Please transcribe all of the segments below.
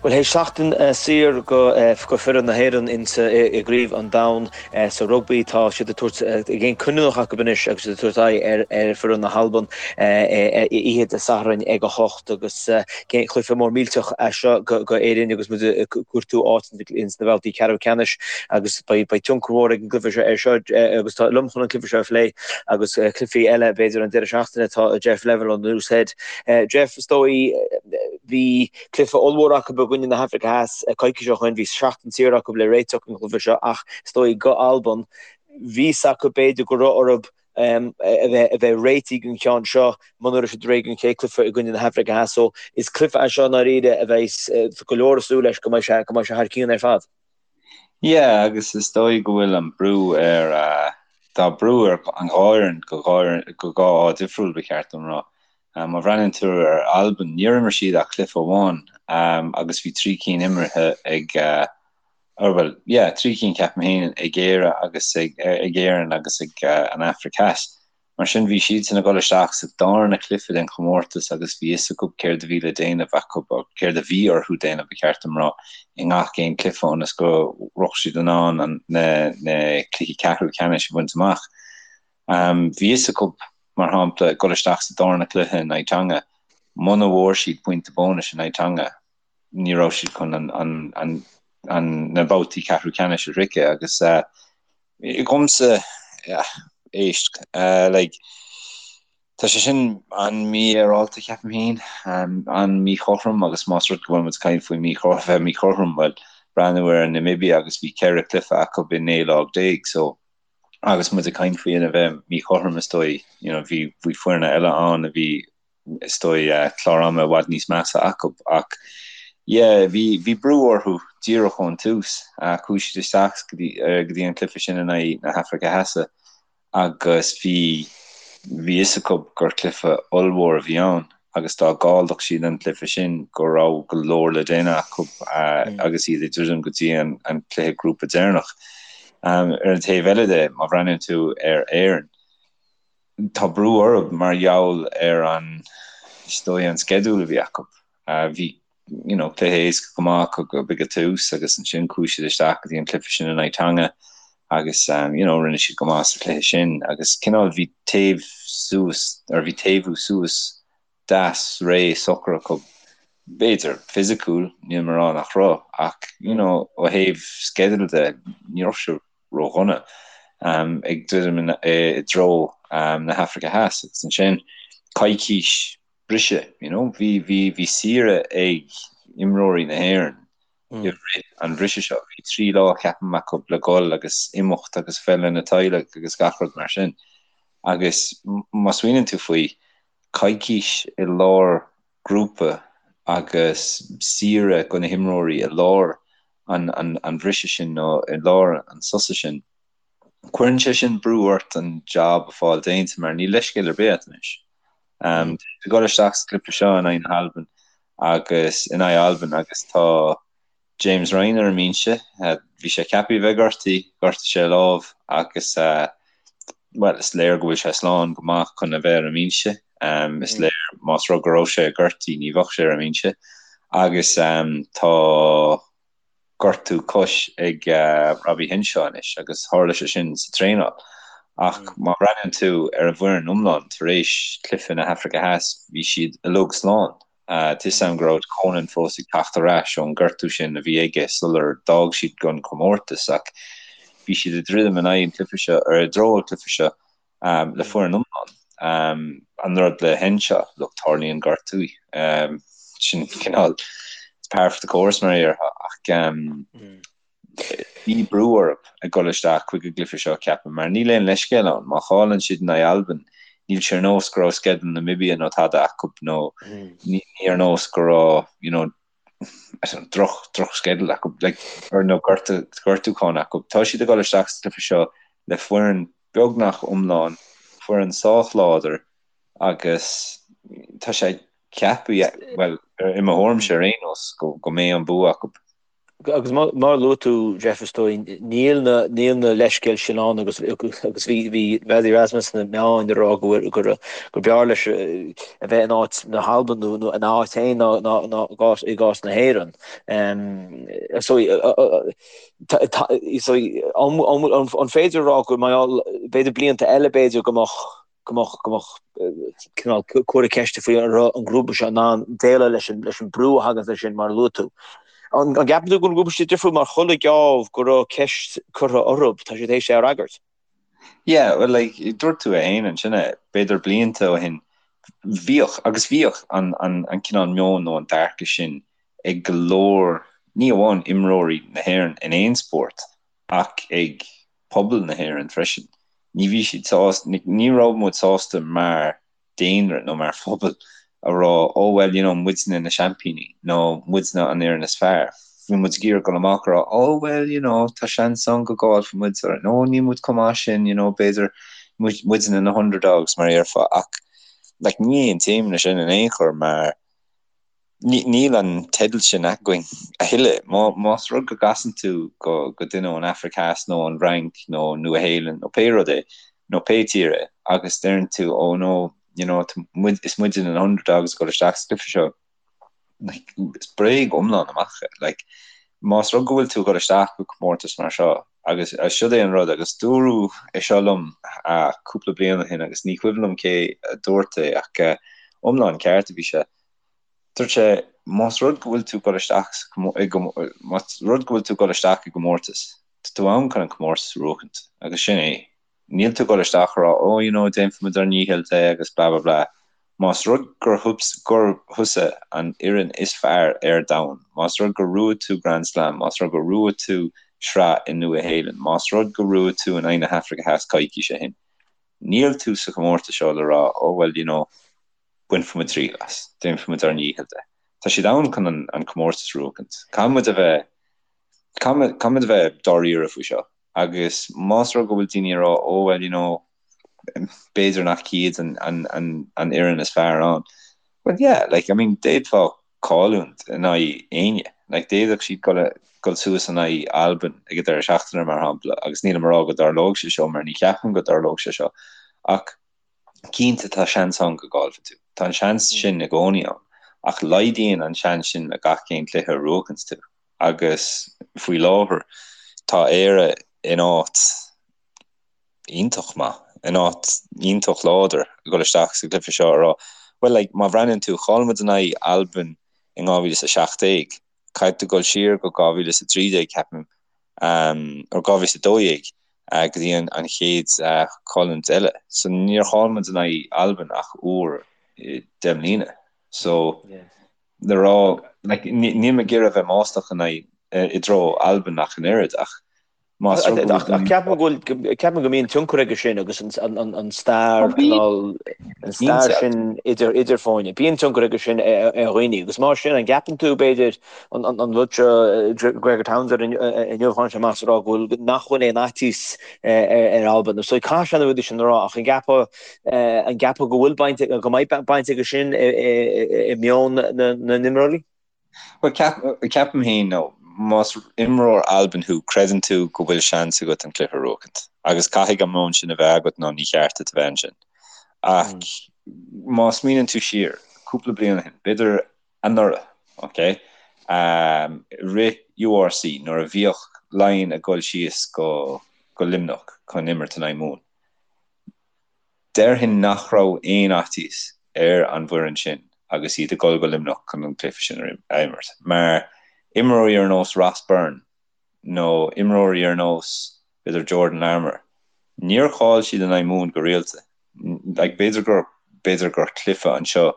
Bhuel, théis seachtain saor go foireann na hÉireann insa i gCraobh an Domhain sa rugbaí, tá siad ag tabhairt gcéim cinniúnach acu anois agus siad ag tabhairt aghaidh ar foireann na hAlban oíche Dé Sathairn ag 8 agus cluiche mór millteach é seo go Éirinn agus muid ag cuartú áit ins na babhtaí ceathrú ceannais agus beidh tionchar mhór ag an gcluiche seo ar seo agus tá liom chun an cluiche seo a phlé agus cluichí eile b'fhéidir an deireadh seachtaine tá Jeff Neville ón Loose Head. Jeff, is dóigh bhí Cluiche ollmhór acu i gcoinne na hAfraice Theas coicís ó shoin. Bhí seachtain saor acu le réiteach don chluiche seo ach is dóigh go Albain, bhí fhios acu b'fhéidir go raibh orthu a bheith réitithe don cheann seo muna raibh siad réidh don chéad cluiche i gcoinne na hAfraice Theas. So is cluiche é seo i ndáiríre a bheidh go leor ag súil leis go mbeidh sé go mbeidh sé thar cionn ar fad. Yeah, agus is dóigh go bhfuil an brú ar, tá brú ar an dhá fhoireann go go dhá fháth difriúil ba cheart dom rá. Má bhreathnaíonn tú ar Albain, níor imir siad ach cluiche amháin agus bhí 3 cinn imeartha ag, or bhuel, yeah, 3 cinn ceapaim féin ag Éire agus ag Éirinn agus ag an Afraic Theas. Mar sin bhí siadsan ag dul isteach sa darna cluiche den chomórtas agus bhí fhios acu céard a bhí le déanamh acu, or céard a bhí orthu déanamh ba cheart dom rá, i ngach aon cluiche ionas go raibh siad in ann an na cluichí ceathrú ceannais a bhaint amach. Bhí fhios acu, mar shampla, ag dul isteach sa darna cluiche in aghaidh Tonga, muna bhfuair siad pointe bónais in aghaidh Tonga, ní raibh siad chun na babhtaí ceathrú ceannais a shroicheadh agus dhomsa, éist, like, tá sé sin an-mhífhéaráilte, ceapaim féin, an-mhíchothrom agus más rud go bhfuil muid ag caint faoi bheith míchothrom, bhuel, breathnú ar Namibia agus bhí 14 cluiche acu i 19 lá, so agus muid ag caint faoi a bheith míchothrom is dóigh, you know, bhí bhí foirne eile ann a bhí is dóigh clár ama i bhfad níos measa acu ach yeah bhí bhí brú orthu díreach ón tús. Chuaigh siad isteach go dtí go dtí an cluiche sin in aghaidh na hAfraice Theas agus bhí bhí fhios acu gur cluiche ollmhór a bhí ann. agus dá gcaillfeadh siad an cluiche sin go raibh go leor le déanamh acu agus iad ag druidim go dtí an cluiche grúpa deireanach. Ar an taobh eile de, má bhreathnaíonn tú ar Éirinn, tá brú orthu mar gheall ar an, is dóigh, an sceideal a bhí acu. Bhí you know, cluiche éasca go maith acu ag an tús agus ansin chuaigh siad isteach go dtí an cluiche sin in aghaidh Tonga agus um, you know, rinne siad go maith sa chluiche sin agus cineál bhí taobh suas or bhí taobhú suas deas réidh socair acu b'fhéidir fisiciúil níl mé ag rá nach raibh ach you know, ó thaobh sceideal de ní raibh sé ródhona um, ag druidim i dtreo um, na hAfraice Theas agus ansin coicís briseadh, you know. Bhí, bhí, bhí saoire ag imreoirí na hÉireann i rith an bhriseadh seo. Bhí 3 lá, ceapaim, acu le dhul agus imeacht agus bheith lena teaghlaigh agus gach rud mar sin. Agus má smaoiníonn tú faoi, coicís i lár grúpa agus saoire do na himreoirí i lár an, an, an bhriseadh sin nó i lár an sosa sin, cuireann sé sin brú ort an job a fáil déanta mar níl leithscéal ar bith agat anois. Ag dul isteach sa gcluiche seo in aghaidh na hAlban agus in aghaidh Alban agus tá James Ryan ar an mbinse. Bhí sé ceaptha a bheith gortaithe, ghortaigh sé a lámh agus bhuel is léir go bhfuil sé slán go maith chun a bheith ar an mbinse. Is léir más rud go raibh sé gortaithe ní bheadh sé ar an mbinse agus tá gortú cois ag Robbie Henshaw anois agus tharla sé sin sa traenáil. Ach má bhreathnaíonn tú ar an bhfoireann iomlán tar éis cluiche na hAfraice Theas, bhí siad uilig slán. Tá 'fhios a'm go raibh Conan fós ag teacht ar ais ón gortú sin a bhí aige sular d'fhág siad an comórtas ach bhí siad ag druidim in aghaidh an cluiche seo, ar i dtreo an cluiche seo le foireann iomlán. An rud le Henshaw, look, tarlaíonn gortú. Sin cineál, it's par for the course mar a déarfá, ach bhí brú orthu ag dul isteach chuig an gcluiche seo, ceapaim, mar níl aon leithscéal ann. Má chailleann siad in aghaidh Albain, níl sé ar nós go raibh sceideal Namibia nó tada acu nó ní ar nós go raibh, you know, droch drochsceideal acu like or nó gortú gortúchán acu. Tá siad ag dul isteach sa chluiche seo le foireann beagnach iomlán, foireann sách láidir agus tá sé ceaptha, bhuel i mo thuairimse ar aon nós, go go mbeidh an bua acu. Agus mar a luaigh tú, Jeff, is dóigh, níl na, níl na leithscéil sin ann agus, agus bhí, bhí Rassie Erasmus sna meáin ag rá go bhfuil, gur, gur b'fhearr leis a bheith in áit na hAlban nó, nó ina áit féin ná, ná, ná i gcás, i gcás na hÉireann. So, so, an, an, an féidir a rá go mbeadh, b'fhéidir blianta eile b'fhéidir go mbeadh, go mbeadh, go mbeadh cineál comhartha ceiste faoi an raibh an grúpa seo in ann déileáil leis an, leis an brú a thagann leis sin, mar a luaigh tú. An, an gceapann tú go bhfuil an grúpa seo difriúil mar chuile gheábh go raibh ceist curtha orthu, tá siad théis é a fhreagairt? Yeah, well like, dúirt tú é féin ansin é, b'fhéidir blianta ó shin, bhíodh, agus bhíodh an, an, an cineál meon nó an dearcadh sin ag go leor, ní amháin imreoirí na hÉireann in aon spórt, ach ag pobal na hÉireann freisin. Ní bhí siad sásta, ní raibh muid sásta mar daonra nó mar phobal a rá oh well you know muidne na seaimpíní nó muidne an fhoireann is fearr. Bhí muid ag iarraidh dul amach a rá oh well you know tá seans ann go gcaillfidh muid or no níl muid chomh maith sin you know b'fhéidir muidne na underdogs mar a déarfá ach like ní aontaím leis sin in aon chor mar Níl an teideal sin againn a thuilleadh. Más rud go gcasann tú go duine ón Afraic Theas nó an Fhrainc nó Nua-Shéalainn nó pé rud é, nó pé tír é, agus deireann tú oh no, you know, is muide na underdogs ag dul isteach sa gcluiche seo, like, is bréag iomlán amach é. Like, más rud go bhfuil tú ag dul isteach go comórtas mar seo, agus siod é an rud, agus dúradh é seo liom cúpla bliain ó shin agus ní cuimhin liom cé a dúirt é ach iomlán ceart a bhí sé, Dúirt sé, más rud go bhfuil tú ag dul isteach más rud go bhfuil tú ag dul isteach i gcomórtas, tá tú ann chun an comórtas a bhuachaint, agus sin é. Níl tú ag dul isteach a rá oh you know déanfaimid ár ndícheall de agus blah blah blah. Más rud gur gur thusa an fhoireann is fearr ar domhan, más rud gur bhuaigh tú Grand Slam, más rud gur bhuaigh tú sraith i Nua-Shéalainn, más rud gur bhuaigh tú in aghaidh na hAfraice Theas coicís ó shin, níl tú sa chomórtas seo le rá oh well you know bainfimid triail as, déanfaimid ár ndícheall de. Tá siad ann chun an comórtas a bhuachaint. Caithfimid a bheith, caithfimid a bheith dáiríre faoi seo. Agus más rud go bhfuil daoine ag rá oh well you know b'fhéidir nach iad an, an, an, an fhoireann is fearr ann. Well yeah, like I mean d'fhéadfá cailliúint in aghaidh éinne. Like d'fhéadfadh siad dul, dul suas in aghaidh Albain ag an deireadh seachtaine mar shampla agus nílim ag rá go dtarlóidh sé seo mar ní cheapaim go dtarlóidh sé seo ach Cinnte tá seans ann go gcaillfidh tú. Tá an seans sin i gcónaí ann. Ach laghdaíonn an seans sin le gach aon cluiche a bhuachanns tú. Agus faoi láthair tá Éire in áit iontach maith, in áit iontach láidir ag dul isteach sa gcluiche seo a rá, bhuel like má bhreathnaíonn tú, chaill muid in aghaidh Albain in 2017, Caithfidh tú dul siar go 2013, ceapaim, nó 2012, go dtí an chéad chailliúint eile. So níor chaill muid in aghaidh Albain ach uair i 10 mbliana. So le rá, like, níl mé ag iarraidh a bheith maslach in aghaidh, i dtreo Albain ach an oiread, ach Más rud go bhfuil. Ach ceapaim go bhfuil, ceapaim go mbíonn tionchar aige sin agus an stair, cineál, an stair sin idir, idir foirne. Bíonn tionchar aige sin ar dhaoine agus mar sin an gceapann tú b'fhéidir an rud seo Gregor Townsend inniu tháinig sé amach is ag rá go bhfuil, nach bhfuil aon fhaitíos ar Albain. So caithfidh sé na rudaí sin a rá ach an gceapfá, an gceapfá go bhfuil baint, go mbeidh baint aige sin i meon na n-imreoirí? Bhuel, ceapaim féin, nó más imreoir Alban thú, creideann tú go bhfuil seans agat an cluiche a bhuachaint. Agus caithfidh an meon sin a bheith agat nó ní cheart duit a bheith ansin. Ach má smaoineann tú siar, cúpla bliain ó shin, b'fhéidir anuraidh, ok, i rith URC, nuair a bhíodh Laighin ag dul síos go Luimneach chun imirt in aghaidh Mumhan, Déarfainn nach raibh aon fhaitíos ar an bhfoireann sin agus iad ag dul go Luimneach chun an cluiche sin a imirt, mar imreoirí ar nós Ross Byrne nó imreoirí ar nós, b'fhéidir, Jordan Larmour, níor chaill siad in aghaidh Mumhan go rialta. Like, b'fhéidir gur, b'fhéidir gur cluiche anseo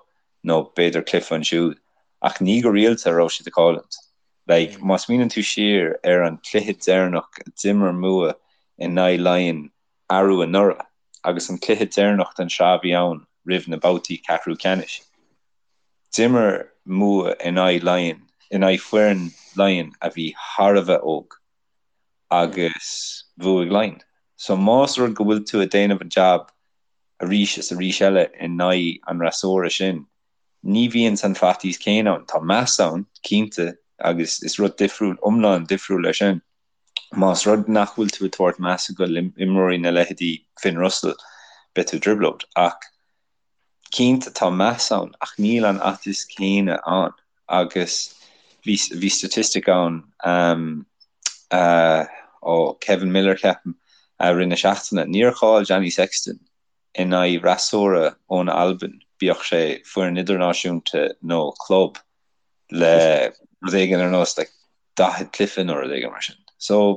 nó b'fhéidir cluiche ansiúd, ach ní go rialta a raibh siad ag cailliúint. Like, má smaoineann tú siar ar an cluiche deireanach a d'imir Mumha in aghaidh Laighean arú anuraidh agus an cluiche deireanach den sraith a bhí ann roimh na babhtaí ceathrú ceannais. D'imir Mumha in aghaidh Laighean, in aghaidh foireann Laighean a bhí thar a bheith óg agus bhuaigh Laighean. So más rud go bhfuil tú ag déanamh an jab arís is arís eile in aghaidh an fhreasúra sin, ní bhíonn an faitíos céanna ann. Tá meas ann, cinnte. Agus is rud difriúil, iomlán difriúil é sin. Más rud nach bhfuil tú ag tabhairt measa go imreoirí na leithéidí Finn Russell, beidh tú i dtrioblóid. Ach cinnte tá meas ann ach níl an fhaitíos céanna ann agus bhí bhí statistic ann ó Kevin Miller ceapaim i rith na seachtaine. Níor chaill Johnny Sexton in aghaidh fhreasúra ón Albain, bíodh sé foireann idirnáisiúnta nó club, le rud éigin ar nós like 40 cluiche nó rud éigin mar sin. So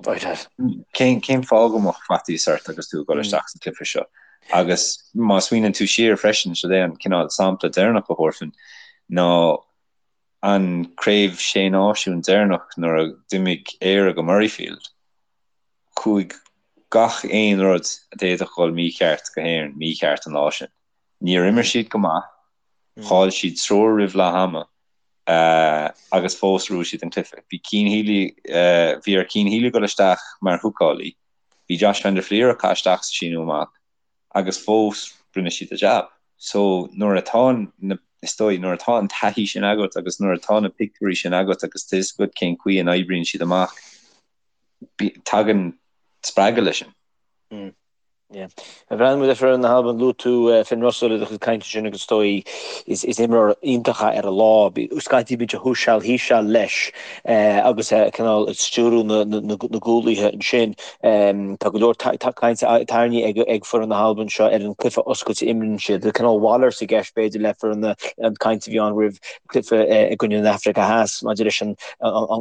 cén cén fáth go mbeadh faitíos ort agus tú ag dul isteach sa chluiche seo? Agus má smaoineann tú siar freisin, siod é an cineál sampla deireanach a thabharfainn ná an craobh sé náisiún deireanach nuair a d'imigh Éire go Murrayfield, chuaigh gach aon rud a d'fhéadfadh dhul mícheart go hÉirinn mícheart an lá sin. Níor imir siad go maith, chaill siad triúr roimh leath ama, agus fós bhuaigh siad an cluiche. Bhí Cian Healy, bhí ar Cian Healy dul isteach mar húcálaí, bhí Josh van der Flier ag caitheamh isteach sa síneadh amach agus fós rinne siad a jab. So nuair atá na, is dóigh, nuair atá an taithí sin agat agus nuair atá na pictiúirí sin agat agus tá fhios agat cén chaoi a n-oibríonn siad amach, tagann spreagadh leis sin. Yeah. Bhreathnaigh muid ar foireann na hAlban, luaigh tú Finn Russell i do chuid cainte sin agus is dóigh is is imreoir iontach é ar a lá. Scaití bíonn sé thuas seal thíos seal leis agus é cineál ag stiúrú na na na gcúlaithe ansin. Tá go leor cainte tarraingthe ag ag foireann na hAlban seo ar an cluiche oscailte a imríonn siad. Tá cineál mhalairt i gceist b'fhéidir le foireann na an caint a bhí ann roimh cluiche i gcoinne na hAfraice Theas maidir leis an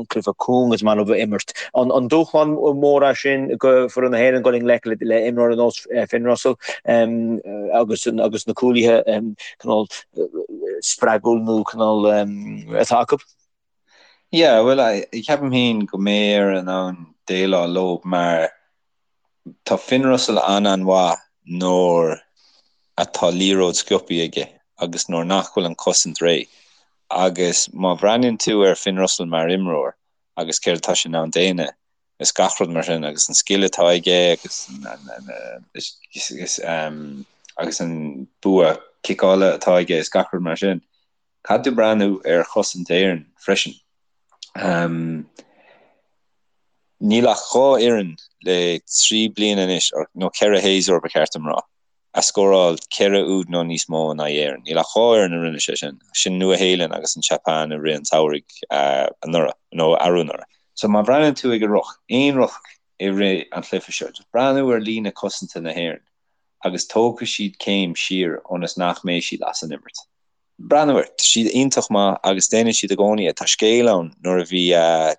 cluiche cúng is maith leo a imirt. An dúshlán mór é sin go foireann na hÉireann dul i ngleic le imreoir ar nós Finn Russell agus agus na cúlaithe cineál spreagúil nó cineál atá acu? Yeah, bhuel, ceapaim féin go mbeidh Éire in ann déileáil leo mar Tá Finn Russell an-an-mhaith nuair atá liathróid sciobtha aige agus nuair nach bhfuil an cosaint réidh. Agus má bhreathnaíonn tú ar Finn Russell mar imreoir agus céard atá sé in ann déanamh is gach rud mar sin agus an scil atá aige agus agus an bua ciceála atá aige is gach rud mar sin, caithfidh tú breathnú ar chosaint Éireann freisin. Níl ach 2 fhoireann le 3 bliana anois, nó 4 shéasúr ba cheart dom rá, a scóráil 4 úd nó níos mó in aghaidh Éireann. Níl ach 2 fhoireann a rinne sé sin, sin Nua-Shéalainn agus an tSeapáin i rith an tsamhraidh anuraidh, nó arú anuraidh. So má bhreathnaíonn tú ag an ruc, aon ruc i rith an chluiche seo, just breathnú ar líne cosanta na hÉireann agus tógfaidh siad céim siar ionas nach mbeidh siad as an imirt. Breathnú air, tá siad iontach maith agus déanann siad i gcónaí é. Tá scéal ann nuair a bhí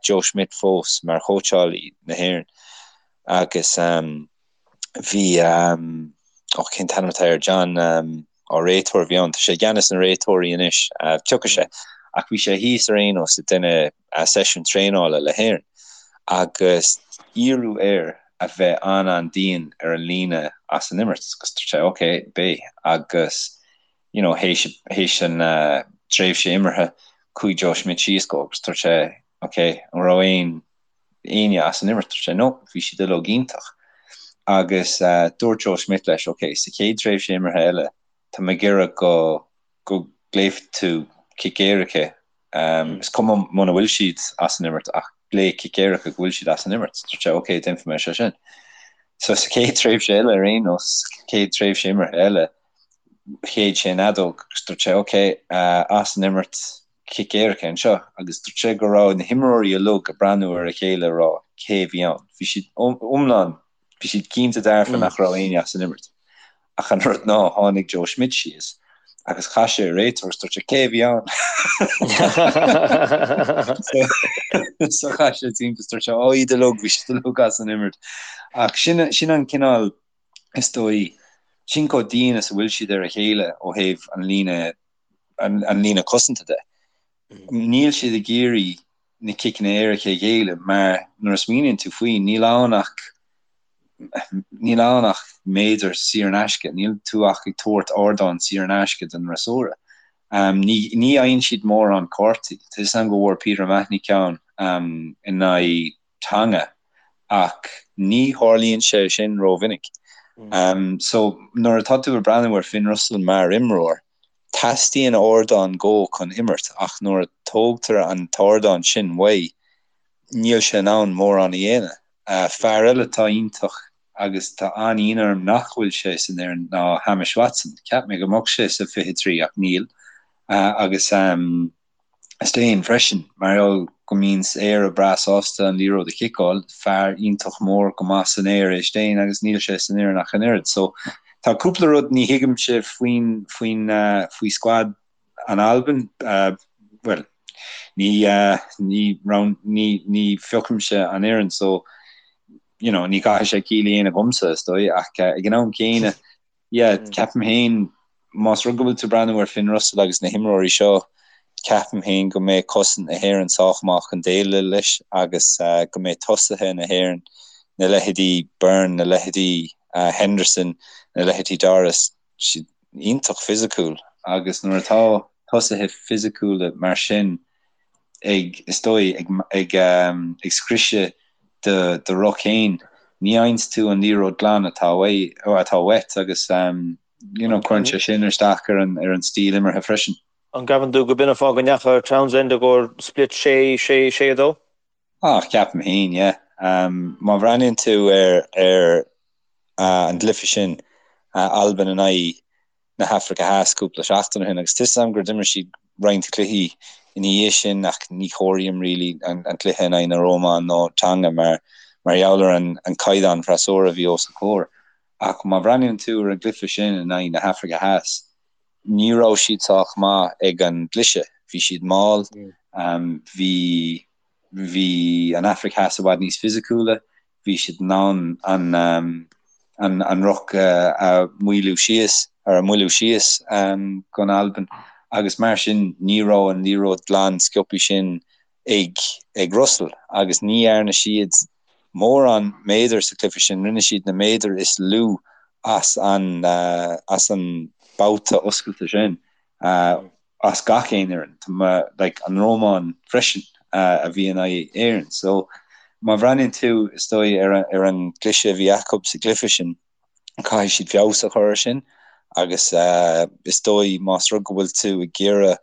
Joe Schmidt fós mar chóitseálaí na hÉireann agus bhí, ó cén t-ainm atá air, John, ó réiteoir a bhí ann, tá sé i gceannas na réiteoirí anois, tiocfaidh sé, ach bhí sé thíos ar aon nós ag déanamh seisiún traenála le hÉirinn agus iarradh air a bheith an-an-dian ar an líne as an imirt agus dúirt sé ok, beidh agus you know, théis, théis an tréimhse imeartha, chuaigh Joe Schmidt síos go agus dúirt sé, ok, an raibh aon, éinne as an imirt? Dúirt sé, no, bhí siad uilig iontach. Agus dúirt Joe Schmidt leis, ok, sa chéad tréimhse imeartha eile, tá mé ag iarraidh go, go nglaofaidh tú cic éirice Is cuma muna bhfuil siad as an imirt ach glaoigh cic éirice go bhfuil siad as an imirt. Dúirt sé ok, déanfaidh mé sé sin. So sa chéad tréimhse eile ar aon nós, chéad tréimhse imeartha eile, shéid sé an fheadóg agus dúirt sé ok, as an imirt, cic éirice anseo. Agus dúirt sé go raibh na himreoirí uilig ag breathnú ar a chéile ag rá cé a bhí ann. Bhí siad iomlán Bhí siad cinnte dearfa nach raibh éinne as an imirt. Ach an rud ná, tháinig Joe Schmidt síos agus chas sé ar an réiteoir agus dúirt sé, Cé a bhí ann? So chas sé timpeall is dúirt sé, Ó, iad uilig, bhí siad uilig as an imirt. Ach sin, sin an cineál, is dóigh, sin chomh dian is a bhfuil siad ar a chéile ó thaobh an líne, an líne cosanta de. Níl siad ag iarraidh na ciceanna éirice a ghéilleadh mar nuair a smaoiníonn tú faoi, níl ann ach níl ann ach méadar saor in aisce, níl tú ach ag tabhairt ardán saor in aisce don fhreasúra. Ní ní fhaigheann siad mórán cártaí. Tá 'fhios a'm go bhfuair Peter O'Mahony ceann in aghaidh Tonga ach ní tharlaíonn sé sin rómhinic. So nuair atá tú ag breathnú ar Finn Russell mar imreoir, Teastaíonn ardán dhó chun imirt ach nuair a tógtar an t-ardán sin uaidh, níl sé in ann mórán a dhéanamh. Fear eile atá iontach agus tá an-ionadh orm nach bhfuil sé san fhoireann ná Hamish Watson. Cheap mé go mbeadh sé sa 23 ach níl. Agus Steyn freisin, mar gheall go mbíonns Éire breá sásta an liathróid a chiceáil, fear iontach mór go maith san aer é Steyn agus níl sé san fhoireann ach an oiread. So tá cúpla rud ní thuigimse faoin faoin faoi squad an Albain, bhuel ní ní ní ní phiocaimse an fhoireann so you know ní chaithfidh sé ciall a dhéanamh dhomsa is dóigh ach ag an am céanna Yeah, ceapaim féin, más rud go bhfuil tú ag breathnú ar Finn Russell agus na himreoirí seo, ceapaim féin go mbeidh cosaint na hÉireann sách maith chun déileáil leis agus go mbeidh tosaithe na hÉireann, na leithéidí Byrne, na leithéidí Henderson, na leithéidí Doris, siad iontach fisiciúil agus nuair atá tosaithe fisiciúla mar sin ag, is dóigh, ag, ag, ag scriosadh do, do ruc féin, ní fhaigheanns tú an liathróid glan atá uaidh, atá uait agus you know, cuireann sé sin isteach ar an, ar an stíl imeartha freisin. An gceapann tú go b'in an fáth go ndeachaigh Townsend i gcomhair split 6, 6, 6, 2? Ah, ceapaim féin, yeah. Má bhreathnaíonn tú ar, ar an gcluiche sin, Albain in aghaidh na hAfraice Theas cúpla seachtain ó shin agus tá 'fhios a'm gur d'imir siad roinnt cluichí ina dhiaidh sin ach ní chomhairím really an cluiche in aghaidh na Rómáin nó Tonga mar mar gheall ar an an caighdeán freasúra a bhí os a comhair. Ach má bhreathnaíonn tú ar an gcluiche sin in aghaidh na hAfraice Theas ní raibh siad sách maith ag an gcliseadh. Bhí siad mall, bhí bhí an Afraic Theas i bhfad níos fisiciúla, bhí siad in ann an an ruc a mhoilliú síos, ar a mhoilliú síos don Albain agus mar sin ní raibh an liathróid glan sciobthaí sin ag ag Russell agus ní dhearna siad mórán méadar sa chluiche sin, rinne siad na méadair is lú as an as an babhta oscailte sin. as gach aon fhoireann, tá mé, like, an Rómáin freisin a bhí in aghaidh Éireann. So, má bhreathnaíonn tú, is dóigh, ar an, ar an gcliseadh a bhí acu sa gcluiche sin, caithfidh siad feabhas a chur air sin agus is dóigh más rud go bhfuil tú ag iarraidh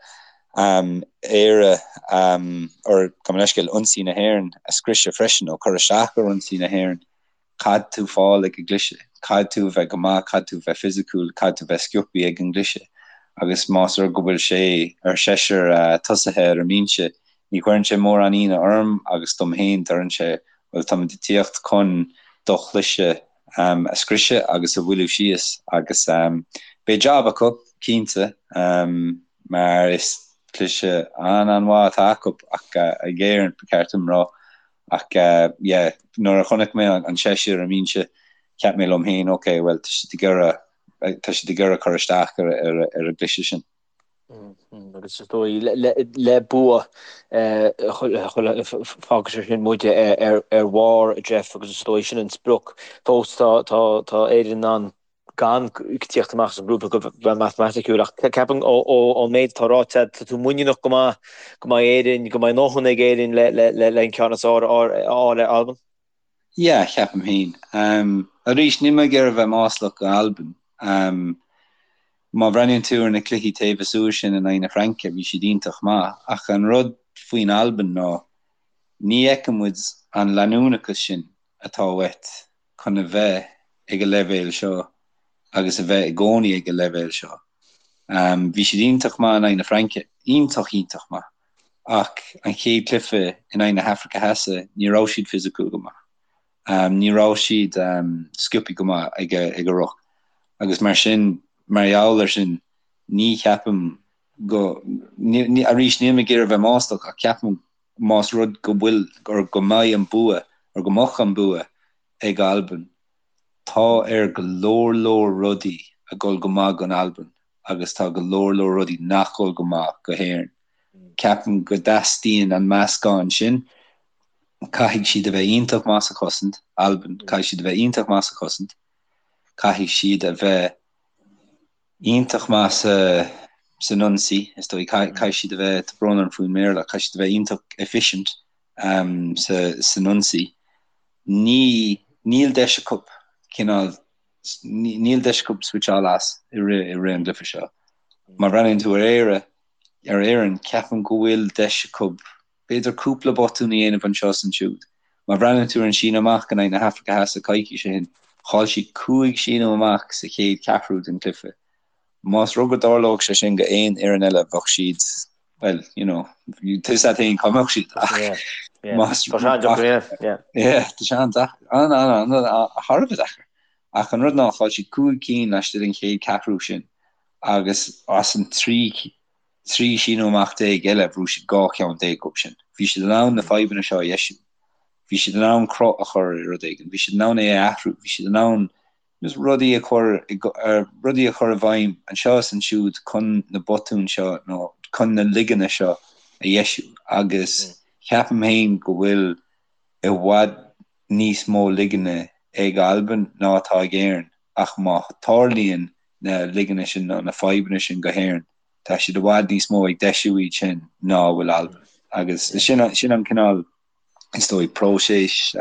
Éire, or gabh mo leithscéal, ionsaí na hÉireann a scriosadh freisin nó cur isteach ar ionsaí na hÉireann, Caithfidh tú fáil ag an gcliseadh. Caithfidh tú a bheith go maith, caithfidh tú a bheith fisiciúil, caithfidh tú a bheith sciobthaí ag an gcliseadh. Agus más rud go bhfuil sé ar seisear tosaithe ar an mbinse, ní chuireann sé mórán ionadh orm agus dom féin, deireann sé, bhuel, táimid ag tíocht chun do chliseadh a scriosadh agus a mhoilliú síos. Agus beidh jab acu, cinnte, mar is cliseadh an-an-mhaith atá acu ach ag Éirinn, ba cheart dom rá. Ach yeah, nuair a chonaic mé an seisear ar an mbinse, cheap mé liom féin, ok, bhuel, tá siad ag iarraidh, tá siad ag iarraidh cur isteach ar ar ar an gcliseadh sin. Agus is dóigh le bua fágfaidh sé sin muid ar ar bharr, Jeff, agus is dóigh sin an sprioc. Fós tá tá tá Éirinn in ann gan tíocht amach as an ngrúpa go bheith matamaiticiúil ach ceapaim ón méid atá ráite agat, tá tú muiníneach go maith go mbeidh Éirinn, go mbeidh a ndóthain ag Éirinn le an ceann is fearr a fháil ar Albain. Yeah, ceapaim féin. Arís, níl mé ag iarraidh a bheith maslach go Albain. Má bhreathnaíonn tú ar na cluichí taobh istigh sin in aghaidh na Fraince, bhí siad iontach maith. Ach an rud faoin Albain ná ní fheiceann muid an leanúnachas sin atá uait chun a bheith ag an leibhéal seo agus a bheith i gcónaí ag an leibhéal seo. Bhí siad iontach maith in aghaidh na Fraince, iontach, iontach maith, ach an chéad chluiche in aghaidh na hAfraice Theas, ní raibh siad fisiciúil go maith. Ní raibh siad sciobthaí go maith ag an ruc agus mar sin, mar gheall air sin, ní cheapaim go, arís, níl mé ag iarraidh a bheith maslach ach ceapaim más rud go bhfuil, or go mbeidh an bua, or go mbeadh an bua ag Albain, tá ar go leor leor rudaí a dhul go maith don Albain agus tá go leor leor rudaí nach dhul go maith go hÉirinn. Ceapaim go dteastaíonn an meascán sin. Caithfidh siad a bheith iontach maith sa chosaint, Albain, caithfidh siad a bheith iontach maith sa chosaint, caithfidh siad a bheith iontach maith sa san ionsaí, is dóigh. Caithfidh siad a bheith, tá brón orm faoin mBéarla, caithfidh siad a bheith iontach efficient sa san ionsaí. Ní, níl deis acu cineál, níl deis acu switcháil as i rith i rith an gcluiche seo. Má bhreathnaíonn tú ar Éire, ar Éirinn, ceapaim go bhfuil deis acu b'fhéidir cúpla botún a dhéanamh anseo is ansiúd. Má bhreathnaíonn tú ar an síneadh amach in aghaidh na hAfraice Theas coicís ó shin, chaill siad 5 síneadh amach sa chéad cheathrú den chluiche. Más rud go dtarlódh sé sin go aon fhoireann eile bheadh siad, bhuel, you know, tá fhios agat féin cá mbeadh siad ach más, Tá sé an-deacair, yeah, yeah. Yeah, tá sé an-deacair, an-an-an, thar a bheith deacair. Ach an rud ná, chaill siad 5 cinn laistigh den chéad cheathrú sin agus as an 13 síneadh amach eile, bhuaigh siad 12 cheann díobh sin. Bhí siad in ann na fadhbanna seo a dheisiú. Bhí siad in ann cruth a chur ar rud éigin. Bhí siad in ann é a athrú. Bhí siad in ann just rudaí a chur rudaí a chur i bhfeidhm anseo is ansiúd chun na botúin seo nó chun na ligeanna seo a dheisiú agus ceapaim féin go bhfuil i bhfad níos mó ligeanna ag Albain ná atá ag Éirinn ach má tharlaíonn na ligeanna sin nó na fadhbanna sin go hÉirinn tá siad i bhfad níos mó ag deisiú iad sin ná a bhfuil Albain agus sin sin an cineál is dóigh próiseas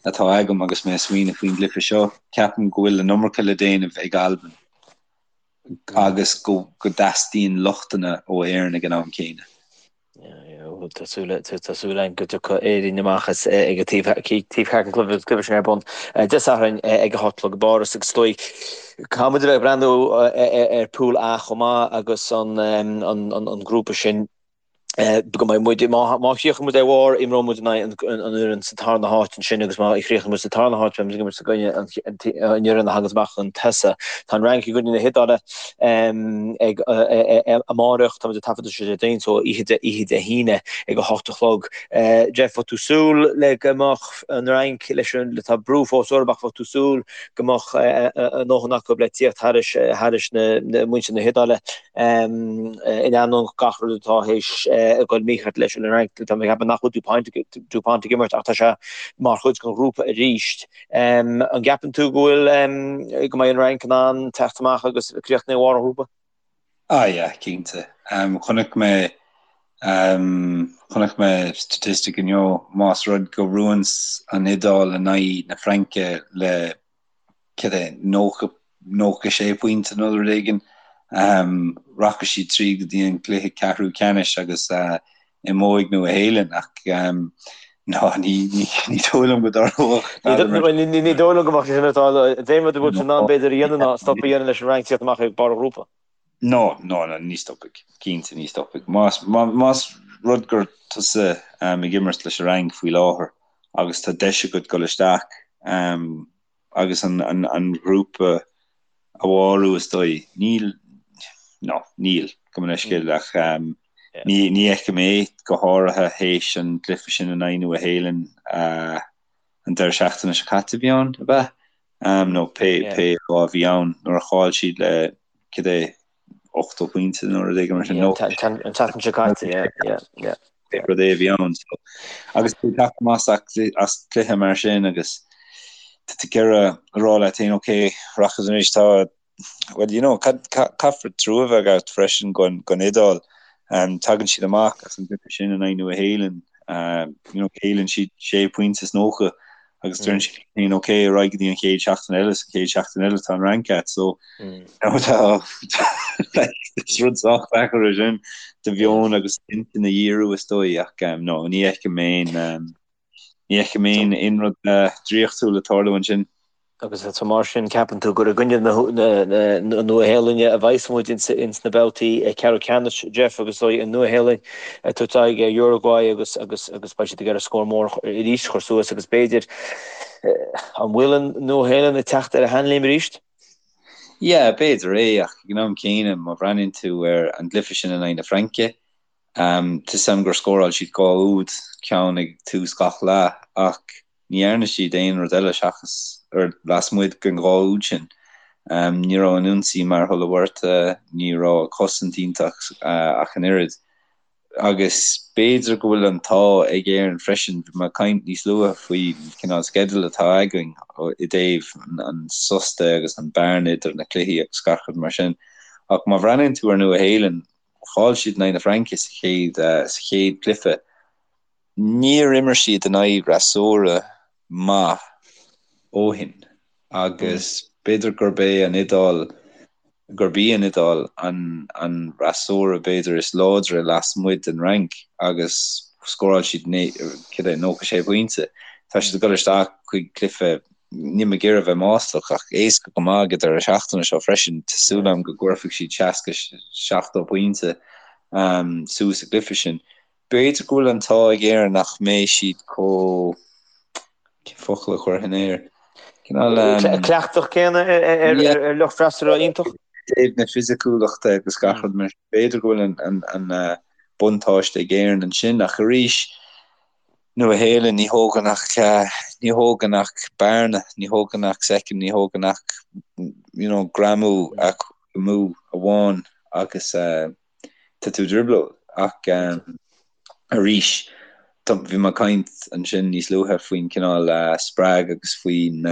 atá agam agus mé ag smaoineamh faoin gcluiche seo. Ceapaim go bhfuil an iomarca le déanamh ag Albain agus go dteastaíonn lochtanna ó Éirinn ag an am céanna. Tá súil againn go dtiocfaidh Éirinn amach as ag an taobh thiar den chluiche cluiche sin ar bun Dé Sathairn ag a 8 a chlog i bPáras agus is dóigh caithfidh muid a bheith ag breathnú ar Pool A chomh maith agus an grúpa sin go mbeidh muid, má chríochnaíonn muid ar bharr, imreoidh muid in aghaidh an fhoireann sa tarna háit ansin agus má chríochnaíonn muid sa tarna háit, beidh muid ag imirt i gcoinne an fhoireann a thaganns amach chun tosaigh. Tá an Fhrainc i gcoinne na hIodáile ag amárach, tá muid ag taifeadadh seo Déardaoin, so oíche Dé hAoine ag 8 a chlog. Jeff, bhfuil tú ag súil le go mbeadh an Fhrainc leis an, tá brú fós orthu ach bhfuil tú ag súil go mbeadh a ndóthain acu le tíocht thairis na muintir na hIodáile? In ainneoin gach rud atá théis a dhul mícheart leis an Fhrainc, tá mé ag ceapadh nach bhfuil Dupont ag imirt ach tá sé mar chuid den ghrúpa arís. An gceapann tú go bhfuil, go mbeidh an Fhrainc in ann teacht amach agus críochnú ar bharr an ghrúpa? Ah yeah, cinnte. Chonaic mé chonaic mé statistic inniu, más rud go mbuann an Iodáil in aghaidh na Fraince le cad é, 90, 96 pointe nó rud éigin. Rachaidh siad tríd go dtí an cluiche ceathrú ceannais agus imeoidh Nua Shéalainn ach ná ní dóigh liom go dtarlódh. Ní dóigh liom go mbeadh sé sin ag tarlú. An t-aon rud a bhfuil siad in ann b'fhéidir a dhéanamh ná stop a dhéanamh leis an Fhrainc tíocht amach ag barr an ghrúpa. No, no, no, ní stopfaidh. Cinnte ní stopfaidh. Más, más rud gur tusa ag imirt leis an Fhrainc faoi láthair agus tá deis agat dul isteach agus an, an, an grúpa a bharrú is dóigh. Níl, no, níl, gabh mo leithscéal ach ní, ní fheicim é go háirithe théis an gcluiche sin in aghaidh Nua Shéalainn an deireadh seachtaine seo caite a bhí ann, ab ea? Nó pé, pé lá a bhí ann nuair a chaill siad le cad é, 80 pointe nó rud éigin mar sin. An tseachtain seo caite, yeah, yeah, yeah. Pé rud é a bhí ann. So, agus tú ag teacht amach as cluiche mar sin agus tá tú ag iarraidh a rá leat féin, ok, rachaidh anois, tá, well, you know, caithfear trua a bheith agat freisin don Iodáil. Tagann siad amach as an gcluiche sin in aghaidh Nua Shéalainn, you know, cailleann siad sé pointe is 90 agus deireann siad féin ok ar aghaidh go dtí an chéad seachtain eile sa chéad seachtain eile tá an Fhrainc agat so tá is rud sách deacair é sin do mheon agus intinn a dhíriú is dóigh ach no ní fheicim aon ní fheicim aon aon rud draíochtúil ag tarlú ansin. Agus so mar sin, ceapann tú gur i gcoinne na Nua-Shéalainne a bheas muid ins na babhtaí ceathrú ceannais, Jeff, agus an Nua-Shéalainn ag tabhairt aghaidh ar Uruguay agus agus agus beidh siad ag iarraidh scór mór arís a chur suas agus b'fhéidir, an bhfuil an Nua-Shéalainn ag teacht ar a sheanléim arís? Yeah, b'fhéidir é, ach ag an am céanna, má bhreathnaíonn tú ar an gcluiche sin in aghaidh na Fraince, tá 'fhios a'm gur scóráil siad 2 úd, ceann ag tús gach leath, ach Ní dhearna siad aon rud eile seachas ar lasmuigh den 2 úd sin. Ní raibh an ionsaí mar Hulla ní raibh an chosaint iontach ach an oiread. Agus b'fhéidir go bhfuil an t-ádh ag Éirinn freisin, bhí mé ag caint níos luaithe faoin cineál sceideal atá againn i dtaobh an sos de agus an bearna idir na cluichí agus gach rud mar sin. Ach má bhreathnaíonn tú ar Nua Shéalainn, chaill siad in aghaidh na Fraince sa chéad sa chéad chluiche. Níor imir siad in aghaidh fhreasúra maith ó shin agus b'fhéidir gurb é an Iodáil. gurb í an Iodáil an an fhreasúra b'fhéidir is láidre lasmuigh den Fhrainc agus scóráil siad cad é 96 pointe. Tá siad ag dul isteach chuig cluiche níl mé ag iarraidh a bheith maslach ach éasca go maith ag an deireadh seachtaine seo freisin. Tá súil agam go gcuirfidh siad 60, 70 pointe suas sa gcluiche sin. B'fhéidir go bhfuil an t-ádh ag Éirinn nach mbeidh siad chomh, cén focal a chuirfinn air? Cineál. Cleachtach céanna ar lucht freasúra iontach. I dtaobh na fisiciúlachta agus gach rud mar sin, b'fhéidir go bhfuil an buntáiste ag Éirinn ansin ach arís, Nua Shéalainn, ní thógann ach, ní thógann ach bearna, ní thógann ach soicind, ní thógann ach you know greamú amú amháin agus tá tú i dtrioblóid. Ach arís, bhí mé ag caint ansin níos luaithe faoin cineál spreag agus faoin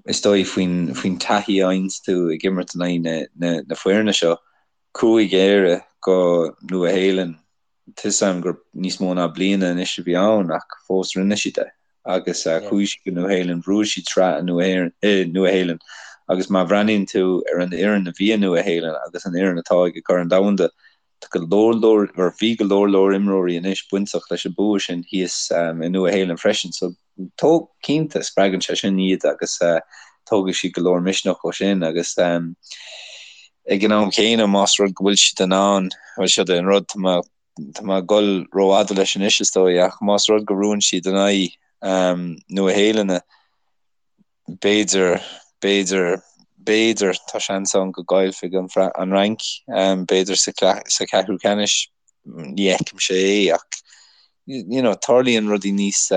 is dóigh faoin faoin taithí a fhaigheanns tú ag imirt in aghaidh na na na foirne seo. Chuaigh Éire go Nua Shéalainn Tá 'fhios a'm gur níos mó ná bliana anois a bhí ann ach fós rinne siad é agus chuaigh siad go Nua Shéalainn, bhuaigh siad sraith i Nua Shéalainn agus má bhreathnaíonn tú ar an fhoireann a bhí i Nua Shéalainn agus an fhoireann atá ag Corn Domhanda, tá go leor leor, or bhí go leor leor imreoirí anois bainteach leis an bua sin thíos i Nua Shéalainn freisin so Tóg, cinnte, spreagann sé sin iad agus tógfaidh siad go leor misneach ó sin agus ag an am chéanna más rud go bhfuil siad in ann, bhuel seo é an rud, tá mé, tá mé ag dul rófhada leis anois is dóigh ach más rud go mbuann siad in aghaidh Nua Shéalainne, b'fhéidir, b'fhéidir, b'fhéidir, tá seans ann go gcaillfidh an Fhrainc, b'fhéidir sa cheathrú ceannais, ní fheicimse é ach you know tarlaíonn rudaí níos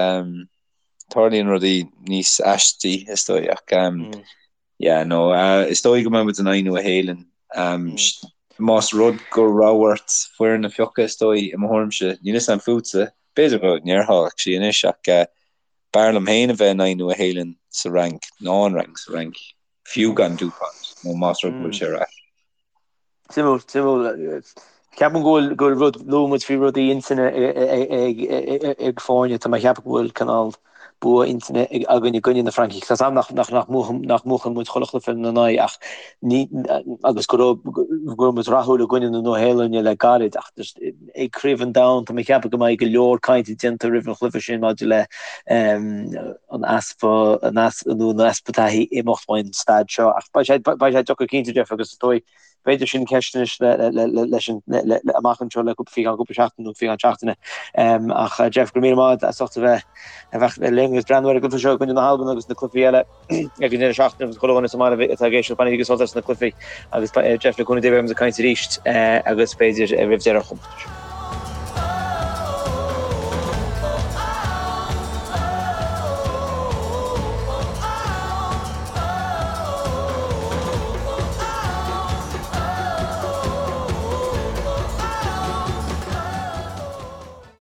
tarlaíonn rudaí níos aistí is dóigh ach yeah no is dóigh go mbeidh muid in aghaidh Nua Shéalainn más rud go raibh ort foireann a phiocadh is dóigh i mo thuairimse níl 'fhios a'm fútsa b'fhéidir go ndéarfá actually anois ach B'fhearr liom féin a bheith in aghaidh Nua Shéalainn sa Fhrainc ná an Fhrainc sa Fhrainc, fiú gan Dupont, nó más rud go bhfuil sé ar ais. Suimiúil, suimiúil. Ceapaim go bhfuil, go bhfuil rud, luaigh muid faoi rudaí intinne ag foirne, tá mé ag ceapadh go bhfuil cineál bua intinne againn i gcoinne na Francaigh. Tá 's a'm nach, nach, nach mbuachan, nach mbuachann muid chuile chluiche ina n-aghaidh ach ní, agus go raibh, go raibh muid rathúil i gcoinne na Nua-Shéalainne le gairid ach just, ag Craobh an Domhain, tá mé ag ceapadh go mbeidh go leor cainte déanta roimh an chluiche sin maidir le an easpa, an easpa nó an easpa taithí imeacht ón staid seo. Ach beidh sé, beidh sé deacair cinnte, Jeff, agus is dóigh, b'fhéidir sin ceist anois le, le, le, leis an, le, le, amach anseo le cúpla, faoi cheann cúpla seachtain nó faoi cheann seachtaine. Ach Jeff, go raibh míle maith agat as ucht a bheith, a bheith linn agus breathnú ar an gcluiche seo i gcoinne na hAlban agus na cluichí eile. Ag an deireadh seachtaine agus chuile dhuine sa mbaile atá ag éisteacht bainigí sult as na cluichí agus Jeff le cúnamh Dé beidh muid ag caint arís agus b'fhéidir roimh deireadh an chomórtais.